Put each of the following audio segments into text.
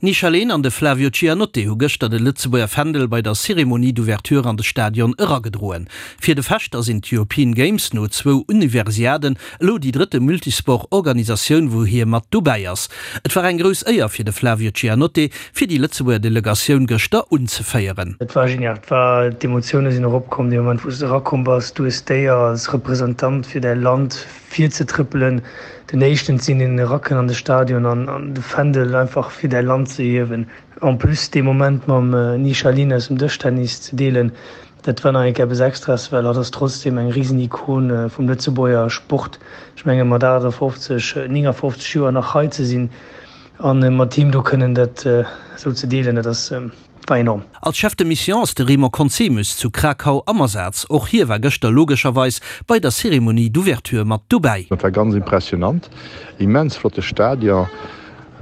D'Nisha Lehn an de Flavio Cianotte hu gëschter de Lëtzebuerger Fändel bei der Cérémonie d'ouverture an de Stadion eragedroen. Fir de Fechter sinn d'European Games no zwou Universiaden elo déi drëtte Multisport-Organisatioun, wou hie mat dobäi ass. Et war eng grouss Éier fir de Flavio Cianotte, fir déi Lëtzebuerger Delegatioun gëschter unzeféieren. Et war genial, et war, d'Emotioune sinn eropkomm dee Moment wou s de erakomm bass. Du hues d'Éier als Representant fir däi Land virzetrëppelen, den éischten ze sinn, deen erakënnt an de Stadion an de Fändel einfach fir däi Land ze hiewen. En plus dee Moment mam Nisha Lin aus dem Dëschtennis ze deelen, dat war nach eng Kéier eppes Extraes, well hatt ass trotzdeem eng Risen-Ikon vum Lëtzebuerger Sport. Ech menge mat 58, 59 Joer nach hei ze sinn a mat him do kënnen dat esou ze deelen, dat ass. War enorm. Als Chef de Mission ass de Raymond Conzemius zu Krakau am Asaz. Och hie war gëschter logescherweis bei der Cérémonie d'ouverture mat dobäi. Et war ganz impressionant, immens flotte Stadion,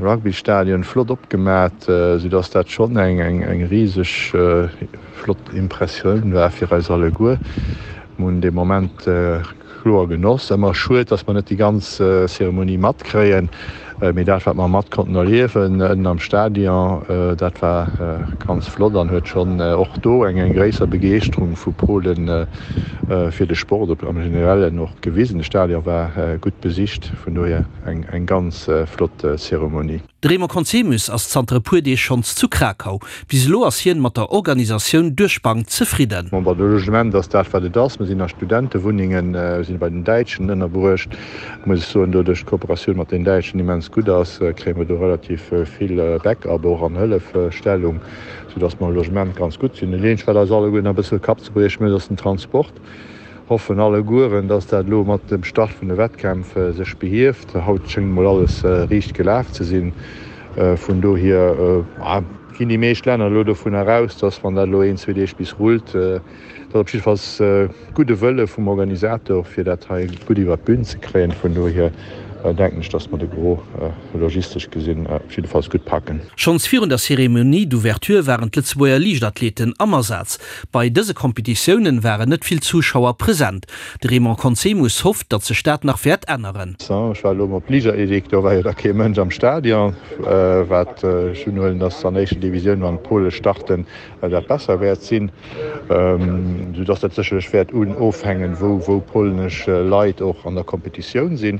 Rugbystadion, flott opgemat, sou dass dat schonn eng riseg flott Impressioun war fir eis alleguer. Mir hunn dee Moment Kloer Genoss. Ëmmer schued, dass mer net déi ganz Zeremonie matkréien, mee dat wat mer mat konnten erliewen ënnen am Stadion, dat war ganz flott an huet schonn och do eng eng gréisser Begeeschterung vu Polen fir de Sport am Generellen och gewisen. De Stadion war gutt besicht, vun dohier eng eng ganz flott Zeremonie. De Raymond Conzemius ass zanter e puer Deeg schonns zu Krakau. Bis elo ass hien mat der Organisatioun duerch d'Bank zefridden. Bon, de Logement ass dat wat et ass. Mir sinn a Studentewunnengen, mir sinn bei den Däitschen ënnerbruecht. Muss ech soen, doduerch d'Kooperatioun mat den Däitschen immens gutt ass, kréie mer do relativ vill Backup och an Hëllefstellung, soudass mer am Logement ganz gutt sinn. Dat eenzegt wat eis alleguerten e bësse Kappzebrieche mécht, ass den Transport. Hoffen allegueren, dass dat elo mat dem Start vun de Wettkämpf sech behieft. Haut schéngt mol alles riicht gelaf ze sinn. Vun dohier ginn déi meescht Länner elo dovunner aus, dass wann dat elo een, zwee Deeg bis rullt, dass op jiddefalls gudde Wëlle vum Organisator fir dat hei gutt iwwert d'Bün ze kréien. Vun dohier denken ech, dass mer de Gros logistesch gesinn op jiddefalls gutt packen. Schonns virun der Cérémonie d'ouverture waren d'Lëtzebuerger Liichtathleten am Asaz. Bei dëse Kompetitiounen waren net vill Zuschauer present. De Raymond Conzemius hofft, datt sech dat nach wäert änneren. Ech war elo op Liichtathletik, do war jo da kee Mënsch am Stadion. Wat ech unhuelen, datt an éischter Divisioun, wann d'Pole starten, dat besser wäert sinn. Sou datt dat sécherlech wäert ofhängen, wou polnesch Leit och an der Kompetitioun sinn.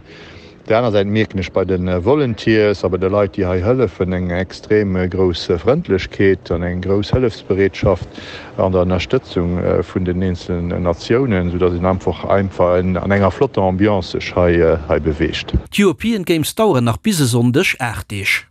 Op der aner Säit mierken ech bei de Volunteers a bei de Leit, déi hei hëllefen, eng extrem grouss Frëndlechkeet an eng grouss Hëllefsbereetschaft an der Ënnerstëtzung vun den eenzelen Natiounen, sou dass een einfach einfach an enger flotter Ambiance sech hei beweegt. D'European Games daueren nach bis e Sonndeg 8 Deeg.